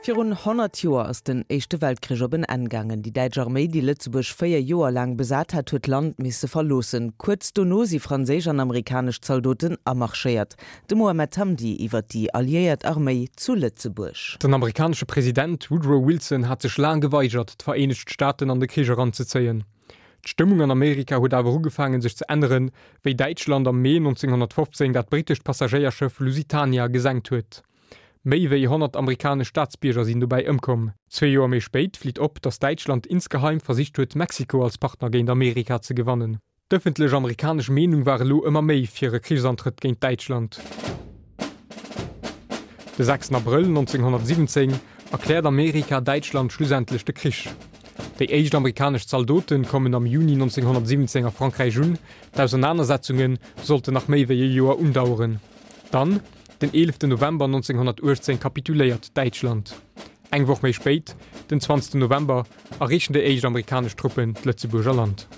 Virun 100 Joer ass den Éischte Weltkrich op en Enn gaangen. Déi däitsch Arméi, déi Lëtzebuerg 4 Joer laang besat hat, huet d'Land misse verloossen. Kuerz dono si franséisch an amerikanesch Zaldoten amarschéiert. De Mohamed Hamdi iwwer déi alliéiert Arméi zu Lëtzebuerg. Den amerikanesche President Woodrow Wilson hat sech laang geweigert, d'Vereenegt Staaten an de Krich eranzezéien. D'Stëmmung an Amerika huet awer ugefaangen sech ze änneren, wéi Däitschland am Mee 1915 dat brittescht Passagéierschëff Lusitania gesenkt huet. Méi wéi 100 amerikanesch Staatsbierger sinn dobäi ëmkomm. Zwee Joer méi spéit flitt op, datt Däitschland insgeheim versicht huet, Mexiko als Partner géint Amerika ze gewannen. D'ëffentlech amerikanesch Meenung war elo ëmmer méi fir e Krichsantrëtt géint Däitschland. De 6 Abrëll 1917 erkläert Amerika Däitschland schlussendlech de Krich. Déi éischt amerikanesch Zaldote kommen am Juni 1917 a Frankräich un. D'Ausernanersetzunge sollten nach méi wéi e Joer undaueren. Dann, den 11 November 1918 kapituléiert Däitschland. Eng Woch méi spéit, den 20 November, erreechen déi éischt amerikanesch Truppen d'Lëtzebuerger Land.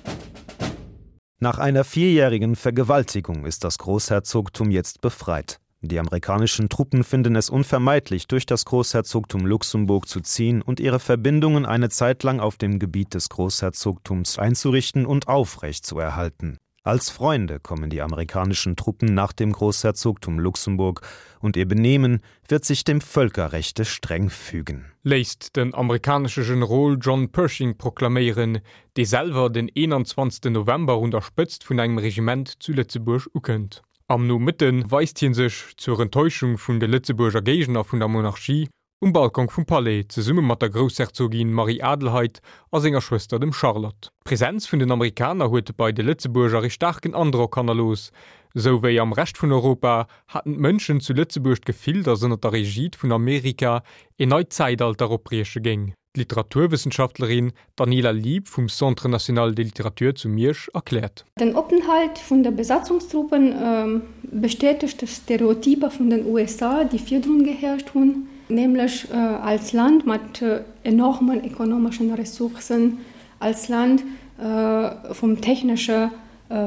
Nach einer vierjährigen Vergewaltigung ist das Großherzogtum jetzt befreit. Die amerikanischen Truppen finden es unvermeidlich, durch das Großherzogtum Luxemburg zu ziehen und ihre Verbindungen eine Zeit lang auf dem Gebiet des Großherzogtums einzurichten und aufrecht zu erhalten. Als Freunde kommen die amerikanischen Truppen nach dem Großherzogtum Luxemburg und ihr Benehmen wird sich dem Völkerrechte streng fügen. Léisst den amerikanesche Generol John Pershing proklaméieren, dee selwer den 21 November un der Spëtzt vun engem Regiment zu Lëtzebuerg ukënnt. Am Nomëtte weist hie sech, zur Enttäuschung vun de Lëtzebuerger Géigner vun der Monarchie, Um Balkon vum Palais, zesumme mat der Groussherzogin Marie-Adelheid a senger Schwëster dem Charlotte. D'Presenz vun den Amerikaner huet bei de Lëtzebuerger ee staarken Androck hannerlooss. Sou wéi am Rescht vun Europa haten d'Mënschen zu Lëtzebuerg d'Gefill, datt ënner der Egide vun Amerika een neit Zäitalter opbrieche géing. D'Literaturwëssenschaftlerin Daniela Lieb vum Centre national de littérature zu Miersch erkläert. Den Openthalt vun de Besatzungstruppen bestätegt d'Stereotyper vun den USA, déi virdrun geherrscht hunn, nämlech als Land mat enormen ekonomeschen Ressourcen, als Land vum technesche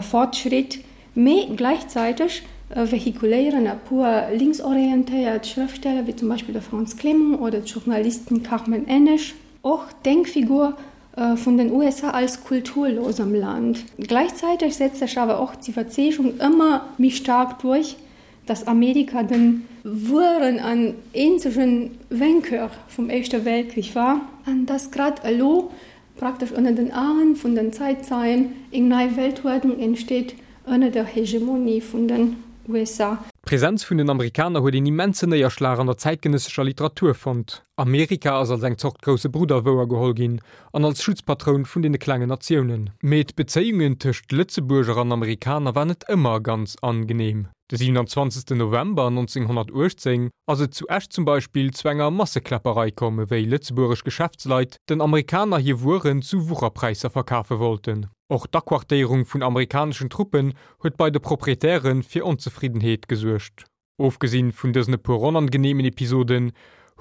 Fortschritt, mee gläichzäiteg vehikuléieren e puer linksorientéiert Schrëftsteller, wéi zum Beispill de Frantz Clément oder d'Journalistin Carmen Ennesch, och d'Denkfigur vun den USA als kulturlosem Land. Gläichzäiteg setzt sech awer och d'Iwwerzeegung ëmmer méi staark duerch, datt Amerika de wueren an eenzege Vainqueur vum Éischte Weltkrich war an datt grad elo Praktesch ënner den Aen vun den Zäitzeien eng nei Weltuerdnung entsteet ënner der Hegemonie vun den USA. D'Presenz vun den Amerikaner huet een immensen Néierschlag an der zäitgenëssescher Literatur fonnt. Amerika ass als eng Zort grousse Brudder wouergeholl ginn an als Schutzpatroun vun deene klengen Natiounen. Mee d'Bezéiungen tëscht Lëtzebuerger an Amerikaner war net ëmmer ganz angenehm. De 27 November 1918 ass et zu Esch zum Beispill zu enger Massekläpperei komm, ewéi lëtzebuergesch Geschäftsleit den Amerikaner hir Wueren zu Wucherpräisser verkafe wollten. Och d'Aquartéierung vun amerikaneschen Truppen huet bei de Proprietäre fir Onzefriddenheet gesuergt. Ofgesinn vun dësen e puer onangeneemen Episoden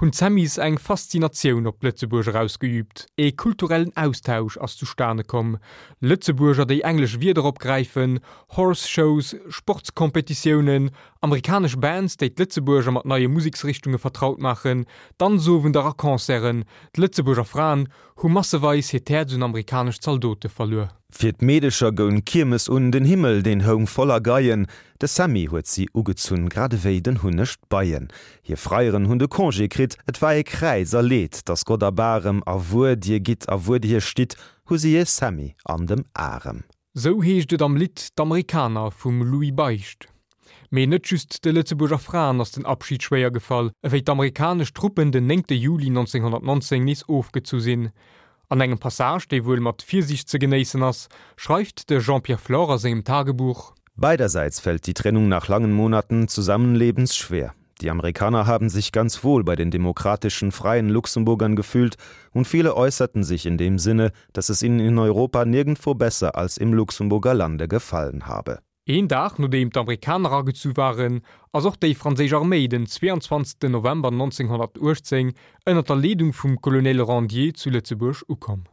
hunn d'Sammies eng Faszinatioun op d'Lëtzebuerger ausgeüübt. Ee kulturellen Austausch ass zustane komm, Lëtzebuerger, déi englesch Wierder opgräifen, Horse Shows, Sportskompetitiounen, amerikanesch Bands, déi d'Lëtzebuerger mat neie Museksrichtunge vertraut maachen, Danzowender a Concerten. D'Lëtzebuerger Fraen hu masseweis hiert Häerz un amerikanesch Zaldote verluer. Fir d'Meedecher goung d'Kiermes un, den Himmel, deen houng voller Geien, de Sammy huet si ugezunn, grad ewéi den Hunneg d'Beien. Hir Freieren hunn de Congé kritt, et war ee Kräiz a Leed, dass Gott erbarem, a wuer dir gitt a wuer dir stitt, hu si ee Sammy an dem Arem. Sou heescht et am Lidd D'Amerikaner vum Louis Beicht. Mee net just de Lëtzebuerger Fraen ass den Abschid schwéier gefall, ewéi d'amerikanesch Truppen den 9 Juli 1919 nees ofgezu sinn. An engem Passage, dee wuel mat Virsiicht ze genéissen ass, schreift de Jean-Pierre Flore a sengem Tagebuch. Beiderseits fällt die Trennung nach langen Monaten Zusammenlebens schwer. Die Amerikaner haben sich ganz wohl bei den demokratischen freien Luxemburgern gefühlt und viele äußerten sich in dem Sinne, dass es ihnen in Europa nirgendwo besser als im Luxemburger Lande gefallen habe. Een Dag nodeem d'Amerikaner agezu waren, ass och déi franséisch Arméi den 22 November 1918 ënner der Leedung vum Colonel Rendier zu Lëtzebuerg ukomm.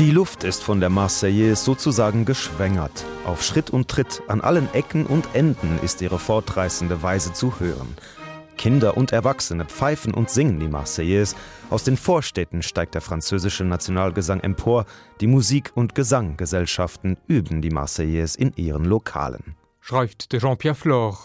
Die Luft ist von der Marseillaise sozusagen geschwängert. Auf Schritt und Tritt an allen Ecken und Enden ist ihre fortreißende Weise zu hören. Kinder und Erwachsene pfeifen und singen die Marseillaise. Aus den Vorstädten steigt der französische Nationalgesang empor. Die Musik- und Gesanggesellschaften üben die Marseillaise in ihren Lokalen. Schreift de Jean-Pierre Flore.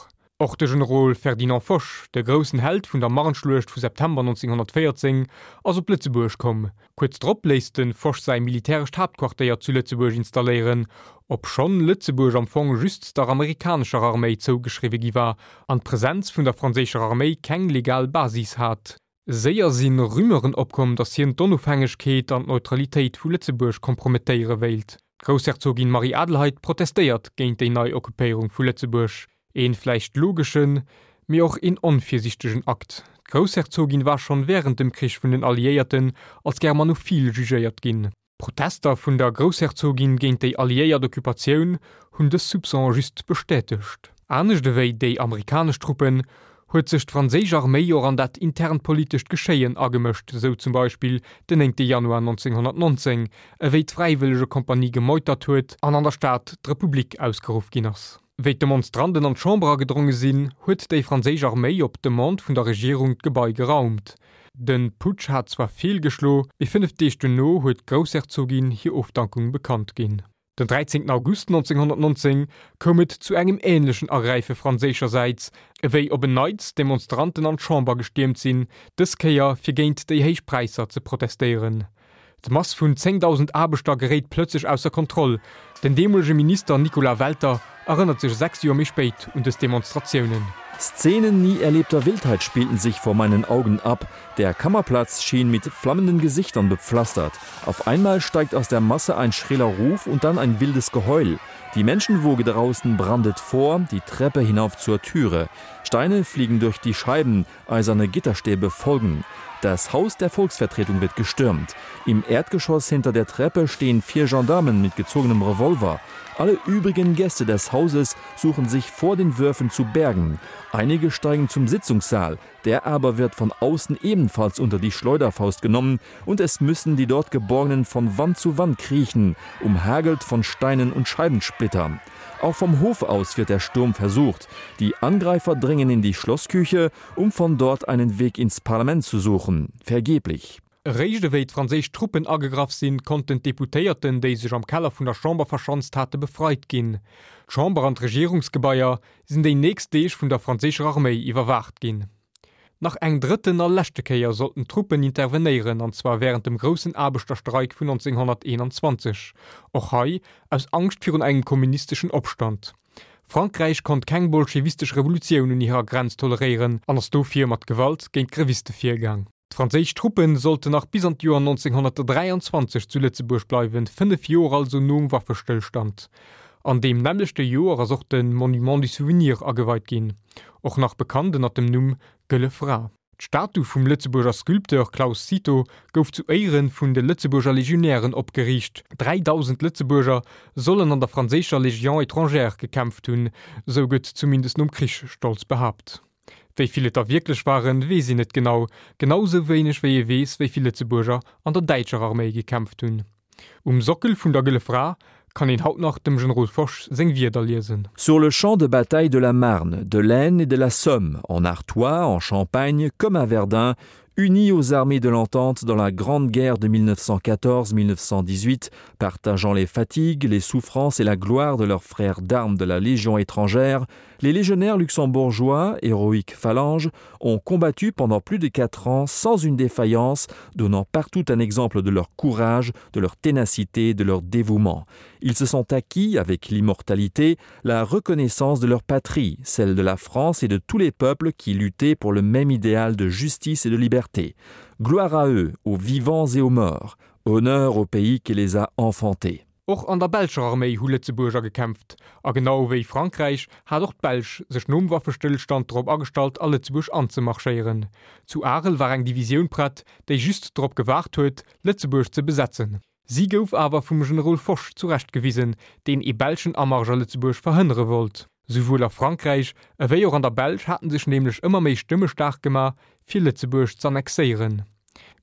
Och de Generol Ferdinand Foch, de groussen Held vun der Marne-Schluecht vu September 1914, ass op Lëtzebuerg komm. Kuerz drop léisst de Foch säi militärescht Haaptquartéier zu Lëtzebuerg installéieren, obschonn Lëtzebuerg am Fong just der amerikanescher Arméi zougeschriwwe gi war an d'Presenz vun der franséischer Arméi keng legal Basis hat. Séier si Rumeuren opkomm, datt hien d'Onofhängegkeet an d'Neutralitéit vu Lëtzebuerg kompromettéiere wéilt. D'Groussherzogin Marie-Adelheid protestéiert géint déi nei Occupéierung vu Lëtzebuerg. Een vläicht logeschen, mee och een onvirsichtegen Akt. D'Groussherzogin war schonn wärend dem Krich vun den Alliéierten als germanophil jugéiert ginn. D'Protester vun der Groussherzogin géint déi alliéiert Occupatioun hunn dës Soupçon just bestätegt. Anescht ewéi déi amerikanesch Truppen, huet sech d'franséisch Arméi och an dat internt politescht Geschéien agemëscht, sou zum Beispill den 9 Januar 1919, ewéi d'Fräiwëllegekompanie gemeutert huet an an der Stad d'Republik ausgeruff ginn ass. Wéi d'Demonstranten an d'Chamber agedronge sinn, huet déi franséisch Arméi op Demande vun der Regierung d'Gebai geraumt. De Putsch hat zwar feelgeschlo, mee 5 Deeg duerno huet d'Groussherzogin hir Ofdankung bekannt ginn. Den 13 August 1919 koum et zu engem änlechen Agräife franséischersäits, ewéi op en Neits Demonstranten an d'Chamber gestiermt sinn, dës Kéier fir géint déi héich Präisser ze protestéieren. D'Mass vun 10.000 Aarbechter geréit plëtzlech ausser Kontroll. Den deemolege Minister Nicolas Welter erënnert sech 6 Joer méi spéit un dës Demonstratiounen. Szenen nie erlebter Wildheit spielten sich vor meinen Augen ab. Der Kammerplatz schien mit flammenden Gesichtern bepflastert. Auf einmal steigt aus der Masse ein schriller Ruf und dann ein wildes Geheul. Die Menschenwoge draußen brandet vor, die Treppe hinauf zur Türe. Steine fliegen durch die Scheiben, eiserne Gitterstäbe folgen. Das Haus der Volksvertretung wird gestürmt. Im Erdgeschoss hinter der Treppe stehen vier Gendarmen mit gezogenem Revolver. Alle übrigen Gäste des Hauses suchen sich vor den Würfen zu bergen. Einige steigen zum Sitzungssaal, der aber wird von außen ebenfalls unter die Schleuderfaust genommen und es müssen die dort Geborgenen von Wand zu Wand kriechen, umhagelt von Steinen und Scheibensplittern. Auch vom Hof aus wird der Sturm versucht. Die Angreifer dringen in die Schlossküche, um von dort einen Weg ins Parlament zu suchen. Vergeblich. Eréischt ewéi d'franséisch Truppen agegraff sinn, konnten d'Deputéierten, déi sech am Keller vun der Chamber verschanzt hate, befreit ginn. D'Chamber an d'Regierungsgebaier sinn déi nächst Deeg vun der franséischer Arméi iwwerwaacht ginn. Nach eng drëtten a leschte Kéier sollten d'Truppen intervenéieren, an zwar wärend dem groussen Aarbechterstreik vun 1921, och hei aus Angscht virun engem kommunisteschen Opstand. Frankräich konnt keng bolschewistesch Revolutioun un hirer Grenz toleréieren an ass dofir mat Gewalt géint d'Greviste virgaang. D'franséisch Truppe sollten nach bis an d'Joer 1923 zu Lëtzebuerg bleiwen, 5 Joer also nom Waffestëllstand. An deem nämmlechte Joer ass och de Monument du Souvenir ageweit ginn, och nach bekannt ënner dem Numm Gëlle Fra. D'Statu vum Lëtzebuerger Sculpteur Claus Cito gouf zu Éiere vun de Lëtzebuerger Legionären opgeriicht. 3.000 Lëtzebuerger sollen an der franséischer Légion étrangère gekämpft hunn, sou gëtt zumindest nom Krich stolz behaapt. Wéi vill et der wierklech waren, weess een net genau, genau sou wéineg wéi ee weess, wéi vill Lëtzebuerger an der däitscher Arméi gekämpft hunn. Um Sockel vun der Gëlle Fra kann een haut nach dem Generol Foch seng Wierder liesen. Sur le champ de bataille de la Marne, de l'Aisne et de la Somme, en Artois, en Champagne comme à Verdun, unis aux armées de l'Entente dans la grande guerre de 1914-1918, partageant les fatigues, les souffrances et la gloire de leurs frères d'armes de la Légion étrangère, les légionnaires luxembourgeois, héroïques phalanges, ont combattu pendant plus de quatre ans sans une défaillance, donnant partout un exemple de leur courage, de leur ténacité, de leur dévouement. Ils se sont acquis, avec l'immortalité, la reconnaissance de leur patrie, celle de la France et de tous les peuples qui luttaient pour le même idéal de justice et de liberté. Gloire à eux, aux vivants et aux morts, honneur au pays qui les a enfantés. Och an der belscher Arméi hu Lëtzebuerger gekämpft, a genau wéi Frankräich hat och d'Belsch sech nom Waffestëllstand drop agestallt a Lëtzebuerg anzemarschéieren. Zu Arel war eng Divisioun prett, déi just drop gewaart huet, Lëtzebuerg ze besetzen. Si gouf awer vum Generol Foch zurecht gewisen, deen ee belschen Amarsch a Lëtzebuerg verhënnere wollt. Souwuel a Frankräich ewéi och an der Belsch haten sech nämlech ëmmer méi Stëmme staark gemaach, fir Lëtzebuerg z'annexéieren.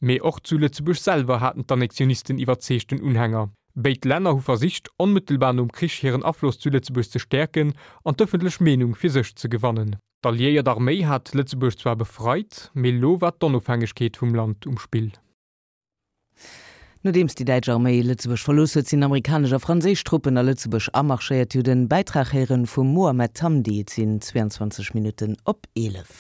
Mee och zu Lëtzebuerg selwer haten d'Annexionisten iwwerzeegten Unhänger. Béid Länner hu versicht, onmëttelbar nom Krich hiren Afloss zu Lëtzebuerg ze stäerken an d'ëffentlech Meenung fir sech ze gewannen. D'alliéiert Arméi hat Lëtzebuerg zwar befreit, mee lo war d'Onofhängegkeet vum Land um Spill. Nodeems déi däitsch Arméi Lëtzebuerg verlooss huet, sinn amerikanesch a franséisch Truppen a Lëtzebuerg amarschéiert. Dir hutt en Bäitrag héieren vum Mohamed Hamdi. Et sinn 22 Minutten op 11.